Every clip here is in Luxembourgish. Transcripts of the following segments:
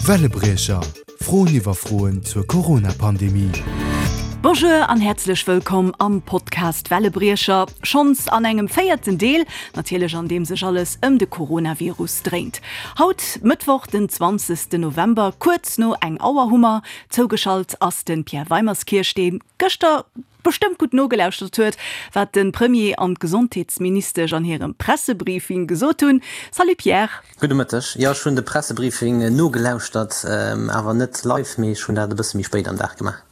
Wellebriecher, Froen iwwer Froen zur Corona-Pandemie. Bonjour an häerzlech wëllkomm am Podcast Wellebriecher, schonns an engem véierten Deel, natierlech an deem sech alles ëm de Coronavirus dréint. Haut, Mëttwoch den 20 November, kuerz no eng Auer hu mer zougeschalt ass de Pierre Weimerskirch, dee gëschter bestëmmt gutt nogelauschtert huet, wat de Premier an d'Gesondheetsministesch an hirem Pressebriefing gesot hunn. Salut Pierre. Gudde Mëtteg. Jo, ech hunn de Pressebriefing nogelauschtert, awer net live, mee ech hunn dat e bësse méi spéit am Dag gemaach.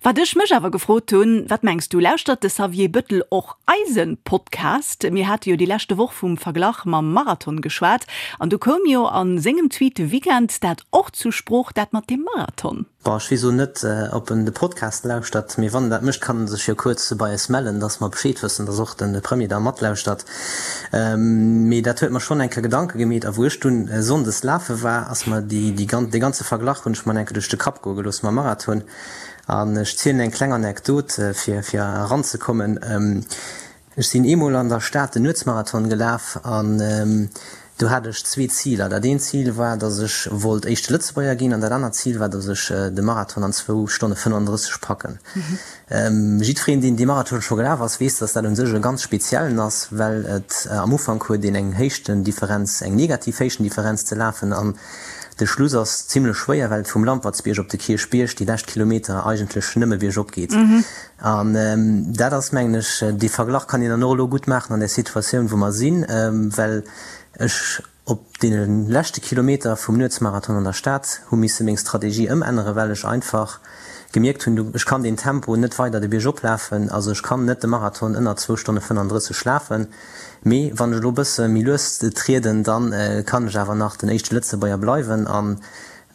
Wat ech mech awer gefrot hunn, Wat mengs du, lauschtert de Xavier Bëttel och eise Podcast? Mir hate jo déi leschte Woch vum Verglach mam Marathon geschwat an du koum jo a sengem Tweet de Weekend dat och zu Sprooch, dat mat deem Marathon. Bon, ech weess elo net, ob en de Podcast lauschtert, mee wann en dat mécht, kann en sech jo kuerz bei eis mellen, dass mer Bescheed wëssen, dass och de Premier da matlauschtert. Mee dat huet mer schonn eng Kéier Gedanke gemeet. A wou ech dunn sonndes lafe war, ass mer déi, dee ganze Verglach hunn ech mer eng Kéier duerch de Kapp goe gelooss mam Marathon. An ech zielen eng kleng Anekdot, fir, fir eranzekommen. Ech sinn eemol an der Stad den Nuetsmarathon gelaf an do hat ech zwee Ziler. Dat eent Zil war, datt ech wollt éischte Lëtzebuerger ginn an dat anert Zil war, datt ech de Marathon an zwou Stonne 35 packen. Jiddwereen, deen dee Marathon scho gelaf ass, weess, datt dat u sech e ganz speziellen ass, well et am Ufank huet een eng Héichtendifferenz, eng negativ Héichtendifferenz ze lafen an de Schluss ass zimlech schwéier, well et vum Lampertsbierg op de Kierchbierg déi lescht Kilometer eigentlech nëmme biergop geet. An dat ass, mengen ech, dee Verglach kann een dann och elo gutt maachen an där Situatioun, wou mer sinn, well ech op deene leschte Kilometer vum Nuetsmarathon an der Stad hu misse meng Strategie ëmänneren, well ech einfach gemierkt hunn, ech kann deen Tempo net weider de Bierg oplafen, also ech kann net de Marathon ënner zwou Stonne 35 lafen, mee wann ech elo e bësse méi lues trieden, da kann ech awer nach den éischte Lëtzebuerger bleiwen. An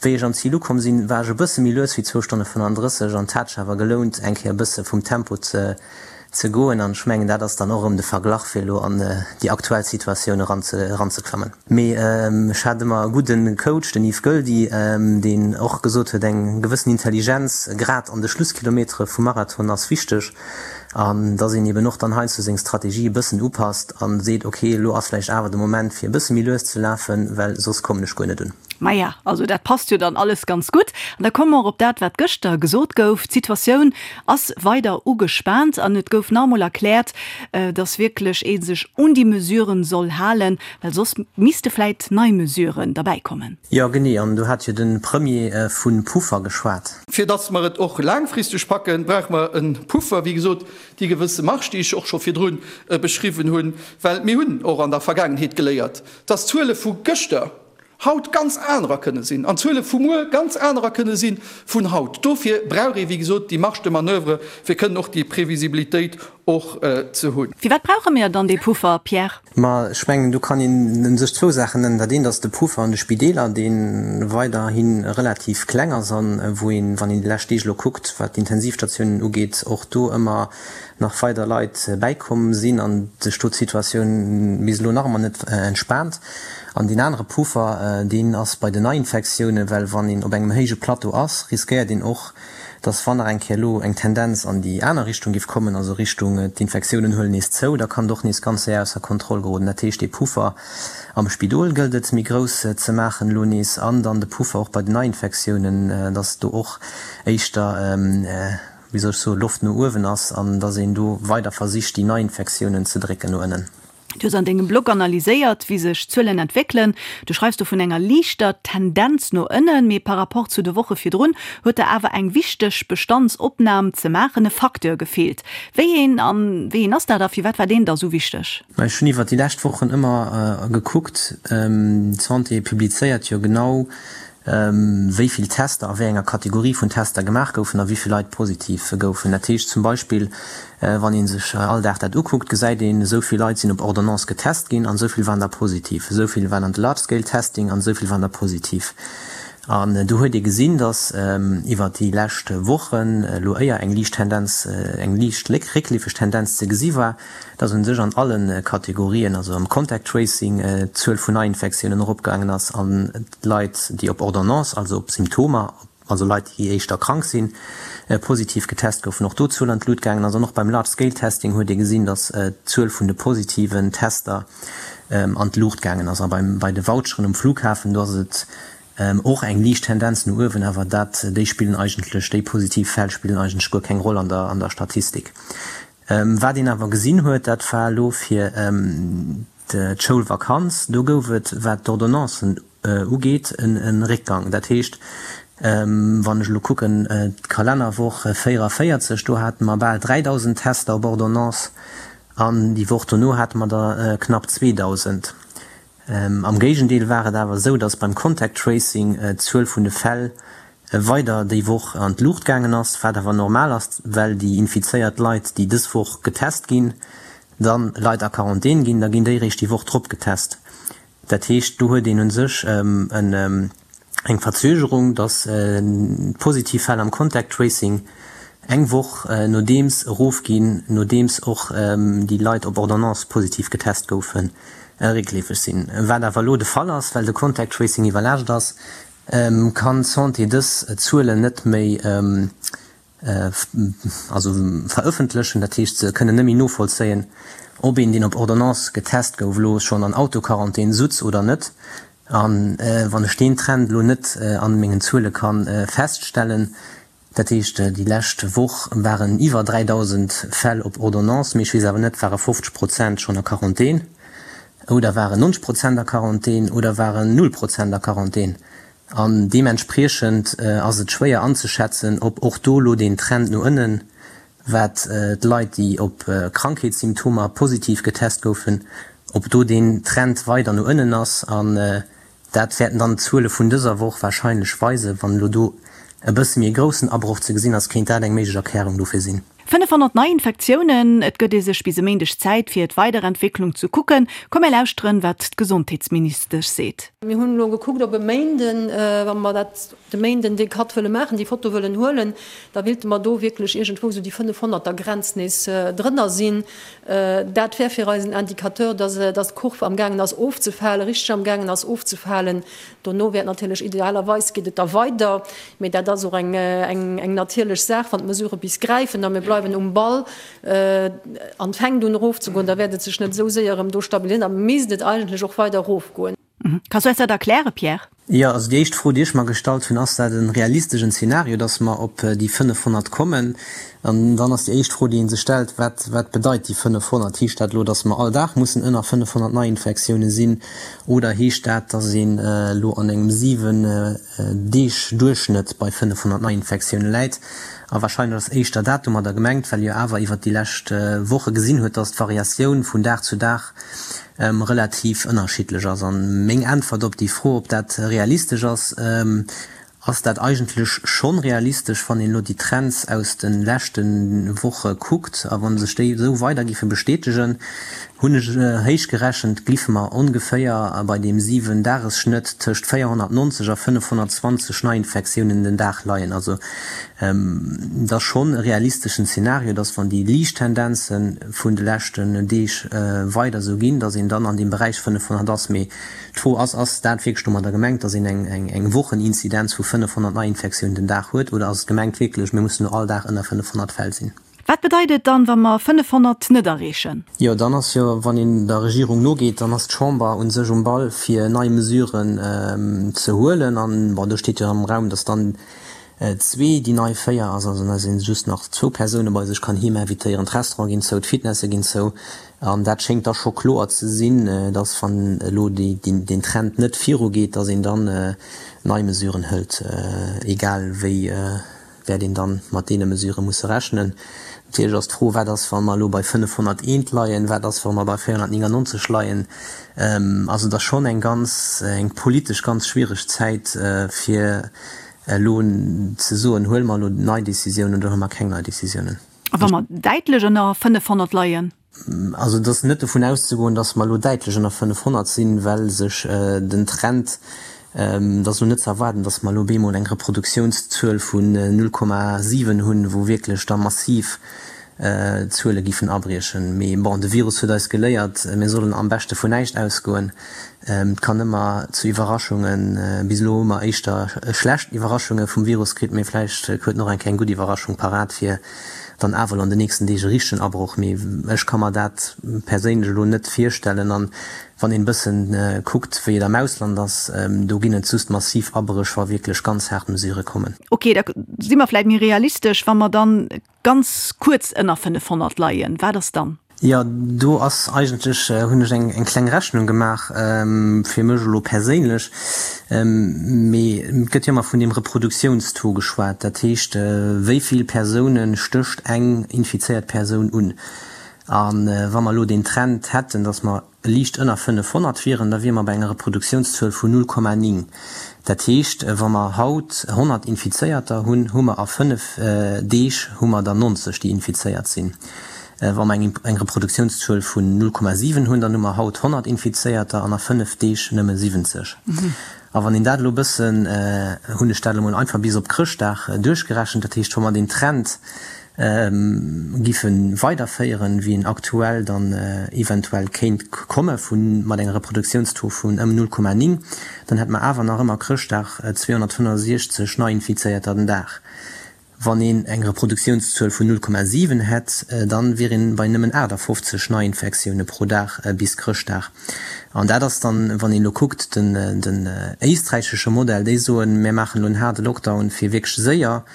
Wéi ech am Zil ukomm sinn, war ech e bësse méi lues wéi zwou Stonne 35 an 't hat sech awer gelount eng Kéier e bësse vum Tempo ze ze goen an ech mengen dat ass dann och erëm de Verglach fir elo an déi aktuell Situatioun eran ze eranzeklammen. Mee ech hat ëmmer e gudde Coach, den Yves Goeldi, deen och gesot huet, eng gewëssen Intelligenz grad an de Schlusskilometere vum Marathon ass wichteg an dass een eben och dann heiansdo seng Strategie e bëssen upasst an seet, ok elo ass vläicht awer de Moment fir e bësse méi lues ze lafen, well soss kommen ech guer net un. Maja, also dat passt jo dann alles ganz gutt. An da komme mer och op dat, wat gëschter gesot gouf. D'Situatioun ass weider ugespaant an et gouf nach emol erkläert, dass wierklech ee sech un déi Mesuren soll halen, well soss misste vläit nei Mesuren derbäikommen. Jo, genee. An do hat jo de Premier vu Puffer geschwat. Fir dass mer et och laangfristeg packen, brauche mer e Puffer, wéi gesot, déi gewësse Marge, déi ech och scho virdru beschriwwen hunn, well mir hunn och an der Vergaangenheet geléiert, dass d'Zuele vu gëschter haut ganz anerer kënne sinn an d'Zuele vu muer ganz anerer kënne si vun haut. Dofir brauch ee wéi gesot déi Marge de manoeuvre, fir kënnen och déi Previsibilitéit och ze hunn. Firwat brauche mir dann dee Puffer, Pierre? Ma ech mengen, do kann een u sech zwou Saachen nennen. Dat eent ass de Puffer an de Spideeler, dee weiderhi relativ kleng ass a wou een, wann een déi lescht Deeg elo kuckt, wat d'Intensivstatiounen ugeet, och do ëmmer nach weider Leit bäikomm sinn an sech do d'Situatioun bis elo nach ëmmer net entspaant. An deen anere Puffer, deen ass bei den Neiinfektiounen, well wann een op engem héije Plateau ass, riskéiert een och, dass wann nach eng Kéier elo eng Tendenz an déi aner Richtung géif kommen, also Richtung d'Infektiounen huelen nees zou, da kann et och nees ganz séier ausser Kontroll geroden. Dat heescht, dee Puffer am Spidol gëllt et méi grouss ze maachen elo nees an dann de Puffer och bei den Neiinfektiounen, dass do och éischter, wéi soll ech soen, Loft no uewen ass an dass een do weider versicht, déi Neiinfektiounen ze drécken no ënnen. Du hues an dengem Blog analyséiert, wéi sech d'Zuelen entwéckelen. Du schreifs do vun enger liichter Tendenz no ënnen, mee par rapport zu de Woche virdrun huet der awer eng wichteg Bestandsopnam ze maachen, e Facteur gefeelt. Wéi een an wéi een ass dat a firwat war deen da sou wichteg? Ech hunn iwwer déi lescht Wochen ëmmer gekuckt, d'Santé publizéiert jo genau wéi vill Tester a wéi enger Kategorie vun Tester gemaach goufen a wéi vill Leit positiv goufen. Dat heescht zum Beispill, wann ee sech all Dag dat ukuckt, gesäit een, esou vill Leit sinn op Ordonnance getest ginn an esou vill waren der positiv, esou vill waren an de Large Scale Testing an esou vill waren der positiv. An do huet ee gesinn, datt iwwer déi lescht Wochen elo éier eng liicht Tendenz, eng liicht réckleefeg Tendenz ze gesi war, dass u sech an alle Kategorien, also am Contact Tracing, d'Zuel vun Neiinfektiounen eropgaangen ass an d'Leit, déi op Ordonnance, also op Symptomer, also Leit, déi éischter krank sinn, positiv getest goufen, och do d'Zuel an d'Lut gaangen ass. An och beim Large Scale Testing huet ee gesinn, dass d'Zuel vun de positiven Tester an d'Luucht gaangen ass. A bei de Voucheren um Flughafen, do ass et. Och eng liicht Tendenz no uewen, awer dat, déi spillen eigentlech, déi positiv Fäll spillen eigentlech guer keng Roll an der, an der Statistik. Wat een awer gesinn huet, dat war elo fir d'Schoulvakanz, do gouf et, wat d'Ordonnancen ugeet, e Réckgang. Dat heescht, wann ech elo kucken, d'Kalennerwoch 44, do hate mer bal 3.000 Tester op Ordonnance an déi Woch dono hate mer der knapp 2.000. Am Géigendeel war et awer esou, datt beim Contact Tracing d'Zuel vun de Fäll weider déi Woch an d'Luucht gaangen ass, wat awer normal ass, well déi infizéiert Leit, déi dës Woch getest ginn, dann Leit a Quarantän ginn, da ginn déi réischt déi Woch drop getest. Dat heescht, do huet een u sech eng Verzögerung, datt d'positiv Fäll am Contact Tracing eng Woch nodeems erofginn, nodeems och déi Leit op Ordonnance positiv getest goufen, réckleefeg sinn. Wat awer elo de Fall ass, well de Contact Tracing iwwerlaascht ass, kann d'Santé dës Zuelen net méi also verëffentlechen. Dat heescht, se kënnen net méi novollzéien, ob een, deen op Ordonnance getest gouf, elo schonn an Autoquarantän sutz oder net. A wann ech deen Trend elo net an mengen Zuele ka feststellen, dat heescht déi lescht Woch waren iwwer 3.000 Fäll op Ordonnance, mee ech weess awer net, ware 50 Prozent schonn a Quarantän oder waren 90 Prozent a Quarantän oder waren null Prozent a Quarantän. An deementspriechend ass et schwéier anzeschätzen, ob och do elo deen Trend no ënnen, wat d'Leit, déi op Krankheetssymptomer positiv getest goufen, ob do deen Trend weider no ënnen ass. An dat wäerten dann d'Zuele vun dëser Woch warscheinlech weisen. Wann elo do e bësse méi e groussen Abroch ze gesinn ass, kéint dat eng méiglech Erklärung dofir sinn. 500 Neiinfektiounen, et gëtt ee sech bis e Méindeg Zäit fir d'Weiderentwécklung ze kucken. Komm mir lauschteren, wat d'Gesondheetsministesch seet. Mir hunn elo gekuckt, ob e Méinden, wa mer dat de Méinden dee Cut wëlle maachen, déi Foto wëllen huelen, da willte mer do wierklech iergendwou esou déi 500er Grenz nees drënner sinn. Dat wär fir eis en Indicateur, dass d'Kurv amgaangen ass ofzefalen, richteg amgaangen ass ofzefalen. Dono wäert natierlech, idealerweis geet et da weider, mee dat ass och eng natierlech Saach, wann d'Mesurë bis gräifen a mir bleiwen um Ball an et fänkt un erofzegoen, da wäert et sech net esou séier erëm do stabiliséieren, da misst et eigentlech och weider erofgoen. Kanns du eis dat erklären, Pierre? Jo, also déi éischt Fro, déi ech mer gestallt hunn, Ass dat e realistegen Zeenario, datt mer op déi 500 kommen? An dann ass déi éischt Fro, déi ee sech stellt, Wat, wat bedeit déi 500? Heescht dat elo, datt mer all Dag mussen ënner 500 Neiinfektioune sinn? Oder heescht dat, datt een elo an engem 7 Deeg Duerchschnëtt bei 500 Neiinfektioune läit? A wahrscheinlech ass éischter dat domadder gemengt, well jo awer iwwert déi lescht Woche gesinn huet, datt d'Variatioun vun Dag zu Dag relativ ënnerschiddlech ass. An meng Äntwert op déi Fro, ob dat realistesch ass, ass dat eigentlech schonn realistesch, wann een elo déi Trends aus de leschte Woche kuckt. A wa sech déi esou weider géife bestätegen, hunn ech héich gerechent, gliffe mer ongeféier bei deem 7 Dagesschnëtt tëscht 490 a 520 Neiinfektiounen den Dag leien. Also et ass schonn e realisteschen Zeenario, dass wann déi liicht Tendenze vun de leschten Deeg weider esou ginn, dass een dann an deem Beräich 500 ass. Mee d'Fro ass, Ass dat wierklech domadder gemengt, dass een eng Wocheninzidenz vu 500 Neiinfektiounen den Dag huet, oder ass et gemengt wierklech, mir mussen elo all Dag ënner 500 Fäll sinn? Wat bedeit et dann, wa mer 500 net erreechen? Jo, dann ass jo, wann een der Regierung nogeet, dann ass d'Chamber u sech um Ball, fir nei Mesuren ze huelen. An, bon, do steet jo am Raum, dass dann zwee déi nei 4 ass, also dass ee just nach zwou Persoune bei sech kann heem invitéieren. D'Restaurante ginn zou, d'Fitnesse ginn zou. An dat schéngt da scho kloer ze sinn, dass, wann elo deen Trend net virugeet, dass een dann nei Mesuren hëlt, egal wéi. wäert een dann mat deene Mesurë musse rechnen. Natierlech ass d'Fro, Wat ass, wa mer elo bei 501 leien? Wat ass, wa mer bei 499 leien? Also et ass schonn eng ganz, eng politesch ganz schwiereg Zäit, fir elo ze soen, Huele mer elo nei Décisiounen oder huele mer keng nei Décisiounen? A wa mer däitlech ënner 500 leien? Also et ass net dovun auszegoen, datt mer elo däitlech ënner 500 sinn, well sech den Trend, et ass elo net ze erwaarden, datt mer elo bemol eng Reproduktiounszuel vun 0,7 hunn, wou wierklech da massiv Zuele giffen abriechen. Mee bon, de Virus huet eis geléiert, mir sollen am beschte vun näischt ausgoen. Et kann ëmmer zu Iwwerraschungen, bis elo hu mer éischter schlecht Iwwerraschunge vum Virus kritt, mee vläicht huet en och eng Kéier eng gutt Iwwerraschung parat fir. dann awer elo an den nächsten Deeg e richtegen Abroch. Mee ech ka mer dat perséinlech elo net virstellen. An wann een e bëssen kuckt, wéi et am Ausland ass, do ginn et just massiv Abréch, wa wierklech ganz haart Mesurë kommen. Ok, da si mer vläit méi realistesch, wa mer dann ganz kuerz ënner 500 leien. Wat ass dann? Jo, do ass eigentlech, hunn ech eng kleng Rechnung gemaach, fir mech elo perséinlech, mee et gëtt jo ëmmer vun deem Reproduktiounstaux geschwat, dat heescht, wéi vill Persoune stécht eng infizéiert Persoun un. A wa mer elo deen Trend hätten, datt mer liicht ënner 500 wieren, da wiere mer bei enger Reproduktiounszuel vun 0,9. Dat heescht, wa mer haut 100 Infizéierter hunn, hu mer a 5 Deeg hu mer der 90, déi infizéiert sinn. Wa mer eng Reproduktiounszuel vun 0,7 hunn, dann hu mer haut 100 Infizéierter an a 5 Deeg nëmme 70. A wann een dat elo e bëssen, hunn ech dat elo mol einfach bis op Chrëschtdag duerchgerechent, dat heescht, wa mer deen Trend giffe weiderféieren, wéi en aktuell dann eventuell kéint komme vu mat enger Reproduktiounstaux vun ëm 0,9, dann hätte mer awer nach ëmmer Chrëschtdag 265 Neiinfizéierter den Dag. Wann een eng Reproduktiounszuel vun 0,7 hätt, dann wier een bei nëmmen 58 Neiinfektioune pro Dag bis Chrëschtdag. An dat ass dann, wann een elo kuckt, den éisträichesche Modell, déi soen, mär maachen elo en haarde Lockdown fir wierklech séier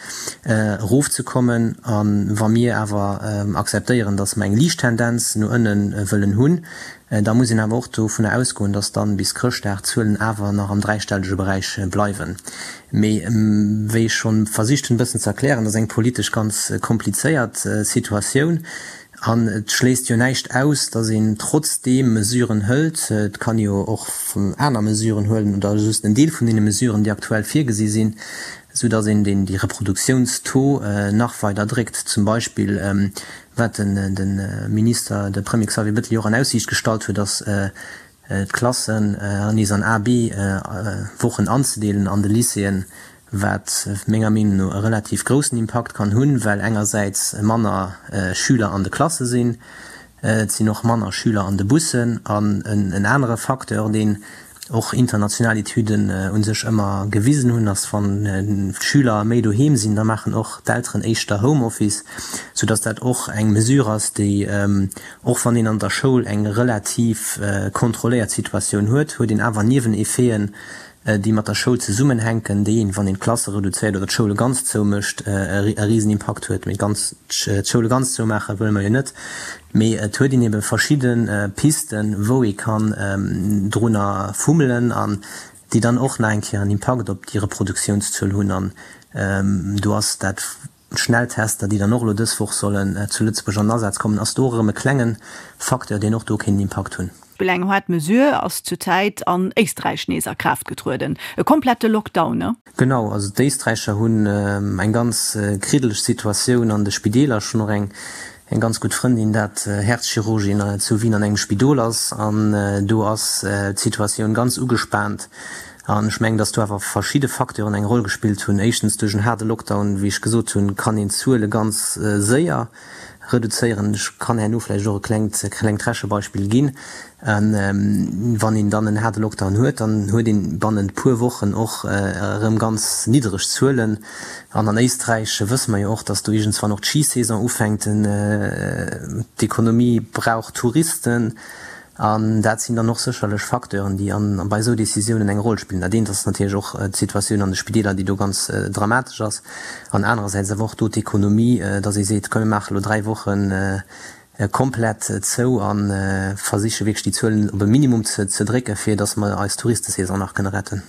erofzekommen. A wa mir awer akzeptéieren, datt mer eng liicht Tendenz no ënne wëllen hunn, Da muss een awer och dovunner ausgoen, dass dann bis Chrëschtdag d'Zuelen awer nach am dräistellege Beräich bleiwen. Mee wéi ech schonn versicht hunn e bëssen ze erklären, dat ass eng politesch ganz komplizéiert Situatioun an et schléisst jo näischt aus, dass een trotzdeem Mesuren hëlt. Et kann ee jo och aner Mesuren huelen oder just en Deel vun deene Mesuren, déi aktuell virgesi sinn, esou dass een déi Reproduktiounstaux nach weider dréckt. Zum Beispill Wat de Minister, de Premier Xavier Bettel jo och an Aussiicht gestallt huet, ass d'Klassen nees an A, B Wochen anzedeelen an de Lycéeën, wat menger Meenung no e relativ groussen Impakt kann hunn, well engersäits manner Schüler an de Klasse sinn, et sinn och manner Schüler an de Bussen an en anere Facteur, deen och international Etüden u sech ëmmer gewisen hunn, ass wann d'Schüler méi doheem sinn, da maachen och d'Elteren éischter Homeoffice, soudass dat och eng Mesure ass, déi, och wann een an der Schoul eng relativ kontrolléiert Situatioun huet, huet een awer Nieweneffeten, déi mat der Schoul zesummenhänken, déi een, wann een d'Klasse reduzéiert oder d'Schoule ganz zoumécht, e Risenimpakt huet. Mee ganz d'Schoule ganz zoumaache wëlle mer jo net. Mee et huet een ebe verschidde Pisten, wou ee kann drunner fummelen an déi dann och nach eng Kéier en Impakt op déi Reproduktiounszuel hunn. An do ass dat d'Schnelltester, déi dann och elo dës Woch sollen zu Lëtzebuerg an den Asaz kommen, ass do och erëm e klenge Facteur, deen och do kéint en Impakt hunn. Eng haart Mesure ass zur Zäit an Éisträich nees a Kraaft getrueden, e komplette Lockdown, ne? Genau, also d'Éisträicher hunn eng ganz kriddeleg Situatioun an de Spideeler. Ech hunn och eng eng ganz gutt Frëndin, dat Häerzchirurgin zu Wien an engem Spidol ass, an do ass d'Situatioun ganz ugespaant. An ech mengen, datt do awer verschidde Facteuren eng Roll gespillt hunn. Éischtens duerch en haarde Lockdown, wéi ech gesot hunn, kann een d'Zuele ganz séier reduzéieren. Ech kann herno vläicht och e klengt klengt Rechebeispill ginn. Wann een dann en haarde Lockdown huet, dann huet een bannent puer Wochen och erëm ganz niddereg Zuelen. An an Éisträich wësse mer jo och, datt do iergendswann och d'Schisaison ufänkt. D'Ekonomie brauch Touristen. An dat sinn dann och sécherlech Facteuren, déi an bei esou Décisiounen eng Roll spillen. Dat eent ass natierlech och d'Situatioun an de Spideeler, déi do ganz dramatesch ass, an anerersäits awer och do d'Ekonomie, datt ee seet, komm mir maache elo 3 Woche komplett zou a versiche wierklech déi Zuelen op e Minimum ze drécken, fir datt mer eis Touristesaison nach kënne retten.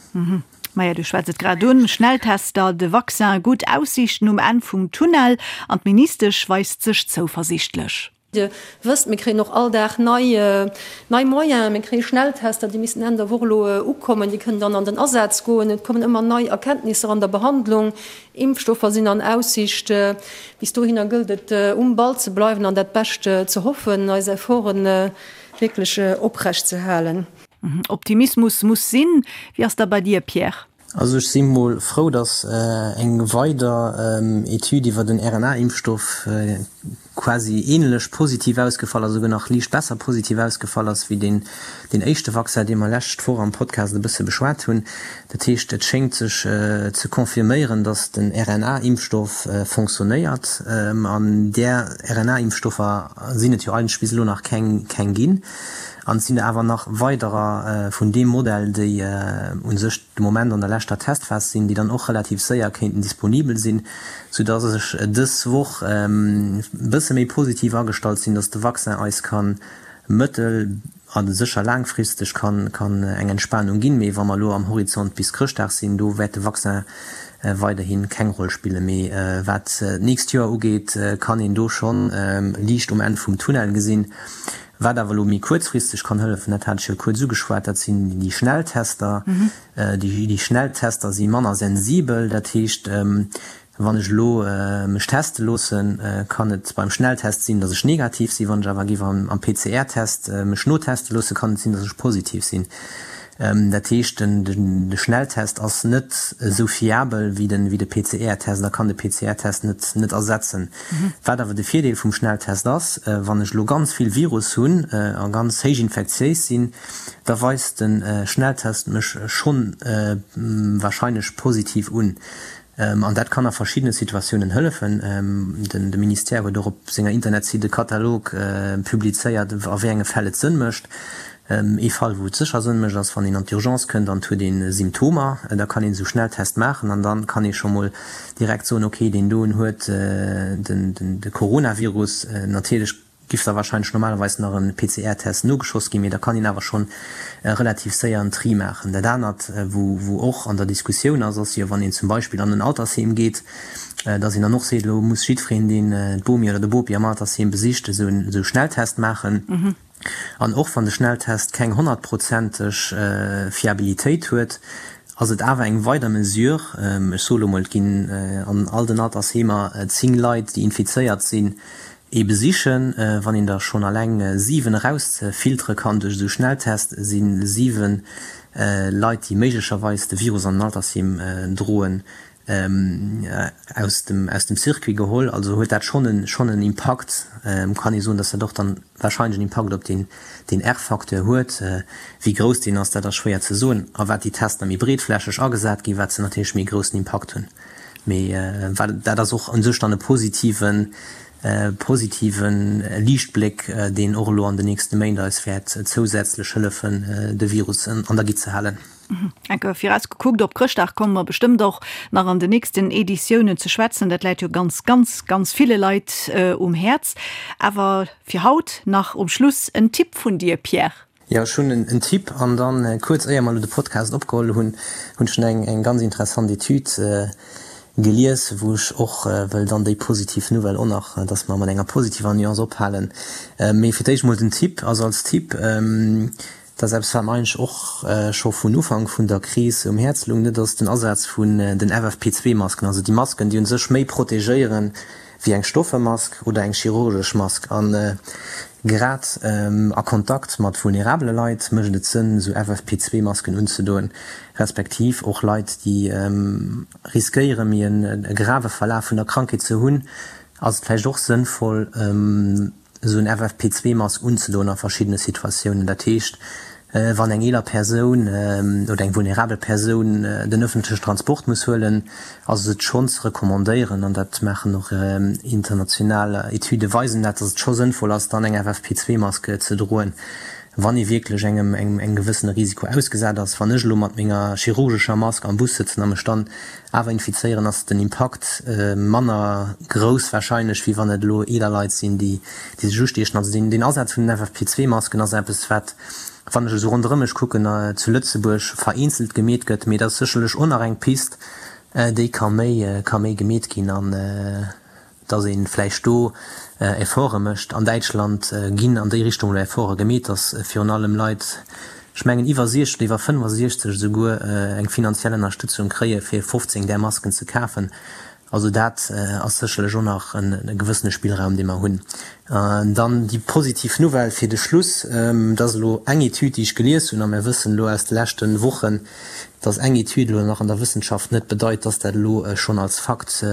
Maja, du schwätz et grad un, Schnelltester, de Vaccin, gutt Aussiichten um Enn vum Tunnel an d'Ministesch weist sech zouversiichtlech. Dir wësst, mir kréien och all Dag nei, nei Moyenen. Mir kréie Schnelltester, déi missten Enn der Woch elo ukommen, déi kënnen dann an den Asaz goen. Et kommen ëmmer nei Erkenntnisser an der Behandlung. Impfstoffer sinn an Aussicht. Bis dohinner gëllt et, um Ball ze bleiwen an dat Bescht ze hoffen, eis Efforte wierklech oprecht ze halen. Optimismus muss sinn. Wéi ass da bei dir, Pierre? Also ech si mol frou, datt eng weider Etüd iwwer den RNA-Impfstoff quasi ähnlech positiv ausgefall ass, esouguer nach liicht besser positiv ausgefall ass wéi deen deen éischte Vaccin, dee mer lescht Woch am Podcast e bësse beschwat hunn. Dat heescht, et schéngt sech ze confirméieren, datt den RNA-Impfstoff fonctionnéiert. An där RNA-Impfstoffer sinn et jo eigentlech bis elo nach keng keng ginn. An et sinn der awer nach weiderer vun deem Modell, déi u sech de Moment an der leschter Testphas sinn, déi dann och relativ séier kéinten disponibel sinn, soudass ech dës Woch e bësse méi positiv agestallt sinn, dass de Vaccin eis ka mëttel a sécher laangfristeg kann kann eng Entspanung ginn. Mee wa mer elo am Horizont bis Chrëschtdag sinn, do wäert de Vaccin weiderhi keng Roll spillen. Mee wat d'nächst Joer ugeet, kann een do schonn Liicht um Enn vum Tunnel gesinn. Wat awer elo méi kuerzfristeg kann hëllefen, dat hat ech jo kuerz ugeschwat, dat sinn déi Schnelltester. Déi Schnelltester si manner sensibel. Dat heescht, wann ech elo mech teste loossen, kann et beim Schnelltest sinn, datt ech negativ sinn. Wann ech awer géif am PCR-Test mech noteste loossen, kann et sinn, datt ech positiv sinn. Dat heescht, de Schnelltest ass net esou fiabel wéi de PCR-Test a kann de PCR-Test net ersetzen. Wat awer de Virdeel vum Schnelltest ass, wann ech elo ganz vill Virus hunn a ganz héich infektiéis sinn, da weist de Schnelltest mech schonn warscheinlech positiv un. An dat kann a verschiddene Situatiounen hëllefen. De Ministère huet och op senger Internetsite e Katalog publizéiert, a wéi enge Fäll et Sënn mécht. Ee Fall, wou et sécher Sënn mécht, ass, wann een an d'Urgence kënnt an et huet ee Symptomer. Da kann een esou Schnelltest maachen an da kann ee scho mol direkt soen, okay, deen doen huet de Coronavirus. Natierlech giff da wahrscheinlech normalerweis nach en PCR-Test nogeschoss ginn, mee da kann een awer schonn relativ séier en Tri maachen. Dat anert, wou wou och an der Diskussioun ass, ass jo, wann een zum Beispill an en Altersheem geet, dass een dann och seet, elo muss jiddwereen, deen d'Bomi oder de Bopi am Altersheem besicht, esou en esou Schnelltest maachen. An och wann de Schnelltest keng honnertprozenteg Fiabilitéit huet, ass et awer eng weider Mesure. Ech soe lo mol, et ginn an all den Altersheemer 10 Leit, déi infizéiert sinn, ee besichen. Wann een der schonn alleng 7 erausfiltere kann duerch esou Schnelltest, si 7 Leit, déi méiglecherweis de Virus an den Altersheem droen, aus dem aus dem Circuit geholl. Also huet dat schonn en schonn en Impakt. Kann ee soen, datt dat och dann wahrscheinlech en Impakt op deen deen R-Facteur huet. Wéi grouss deen ass, dat ass schwéier ze soen. A wat déi Tester méi breetflächeg agesat ginn, wat se natierlech méi e groussen Impakt hunn. Mee wat dat ass och u sech dann e positiven positive Liichtbléck, deen och elo an den nächste Méint eis wäert zousätzlech hëllefen, de Virus an der Gitt ze halen. Enke viraus gekuckt op Chrëschtdag komme mer bestëmmt och nach an den nächsten Editiounen ze schwätzen. Dat läit jo ganz, ganz, ganz ville Leit um Häerz. Awer fir haut nach um Schluss en Tipp vun dir, Pierre. Jo, ech hunn en Tipp. An dann, kuerz éier mer elo de Podcast opgeholl hunn, hunn ech eng eng ganz interessant Etüd gelies, wou ech och wëll dann déi positiv Nouvelle och nach, dass mer mat enger positiver Nuance ophalen. Mee fir d'éischt mol den Tipp, also als Tipp, Dat ass eppes, wat mer eigentlech och scho vun Ufank vun der Kris um Häerz loung, dat ass den Asaz vun den FFP2-Masken, also déi Masken, déi u sech méi protegéiere wéi eng Stoffemask oder eng chirurgesch Mask. A grad a Kontakt mat vulnerabele Leit mécht et Sënn, esou FFP2-Masken unzedoen, respektiv och Leit, déi riskéiere méi e grave Verlaf vun der Krankheet ze hunn, ass et vläicht och sënnvoll, esou en FFP2-Mask unzedoen a verschiddene Situatiounen. Dat heescht, wann eng eeler Persoun oder eng vulnerabel Persoun den ëffentlechen Transport muss huelen, ass et schonn ze recommandéieren, an dat maachen och international Etüde weisen dat, datt et scho sënnvoll ass, dann eng FFP2-Mask ze droen, wann ee wierklech engem engem gewëssene Risiko ausgesat ass. Wann ech elo mat menger chirurgescher Mask am Bus sëtzen a mech dann Awer infizéieren ass den Impakt manner grouss warscheinlech, wéi wann et elo eeler Leit sinn, déi sech ustiechen. Also deen Asaz vun den FFP2-Masken ass eppes, wat, wann ech esou ronderëm mech kucken, zu Lëtzebuerg vereenzelt gemeet gëtt. Mee dat ass sécherlech och nach eng Pist, déi ka méi ka méi gemeet ginn. An dass ee vläicht do Efforte mécht. An Däitschland ginn an déi Richtung elo Efforte gemeet, dass virun allem Leit, ech mengen iwwer 60 oder iwwer 65 esouguer, eng finanziell Ënnerstëtzung kréie fir 15 där Masken ze kafen. Also dat ass sécherlech och nach e gewëssene Spillraum, dee mer hunn. Dann déi positiv Nouvelle fir de Schluss, dat ass elo eng Etüd, déi ech gelies hunn, a mir wëssen elo aus de leschte Wochen, dass eng Etüd elo nach an der Wëssenschaft net bedeit, dass dat elo schonn als Fakt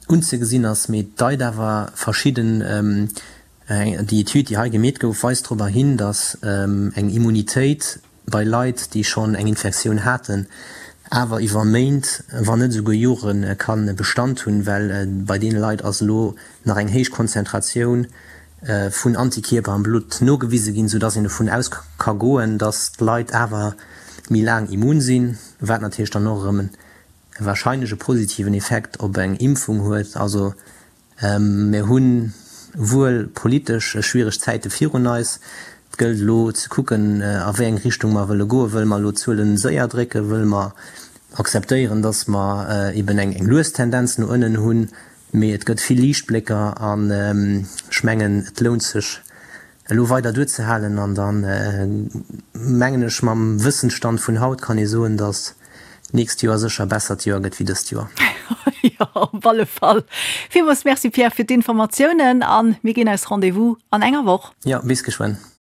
unzegesinn ass, mee et deit awer verschidden, déi Etüd, déi hei gemeet gouf, weist dorobber hin, dass eng Immunitéit bei Leit, déi schonn eng Infektioun haten, awer iwwer Méint, wann net esouguer Jore ka Bestand hunn, well bei deene Leit ass elo nach eng héich Konzentratioun vun Antikierper am Blutt nogewise ginn, soudass een dovun aus ka goen, dass d'Leit awer méi laang immun sinn, wat natierlech dann och erëm warscheinlech e positiven Effekt op eng Impfung huet. Also Mir hu wuel politesch schwiereg Zäite virun eis. Et gëllt elo ze kucken, a wéi eng Richtung mer wëlle goen. Wëlle mer elo d'Zuele séier drécken? Wëlle mer akzeptéieren, datt mer eben eng lues Tendenz no ënnen hunn? Mee et gëtt vill Liichtblécker an ech mengen, et lount sech elo weider duerzehalen an dann mengen ech mam Wëssensstand vun haut kann ee soen, datt d'nächst Joer sécher e bessert Joer gëtt wéi dëst Joer. Jo, op alle Fall. Villmools Merci Pierre fir d'Informatiounen an mir ginn eis Rendez-vous an enger Woch. Jo, bis geschwënn.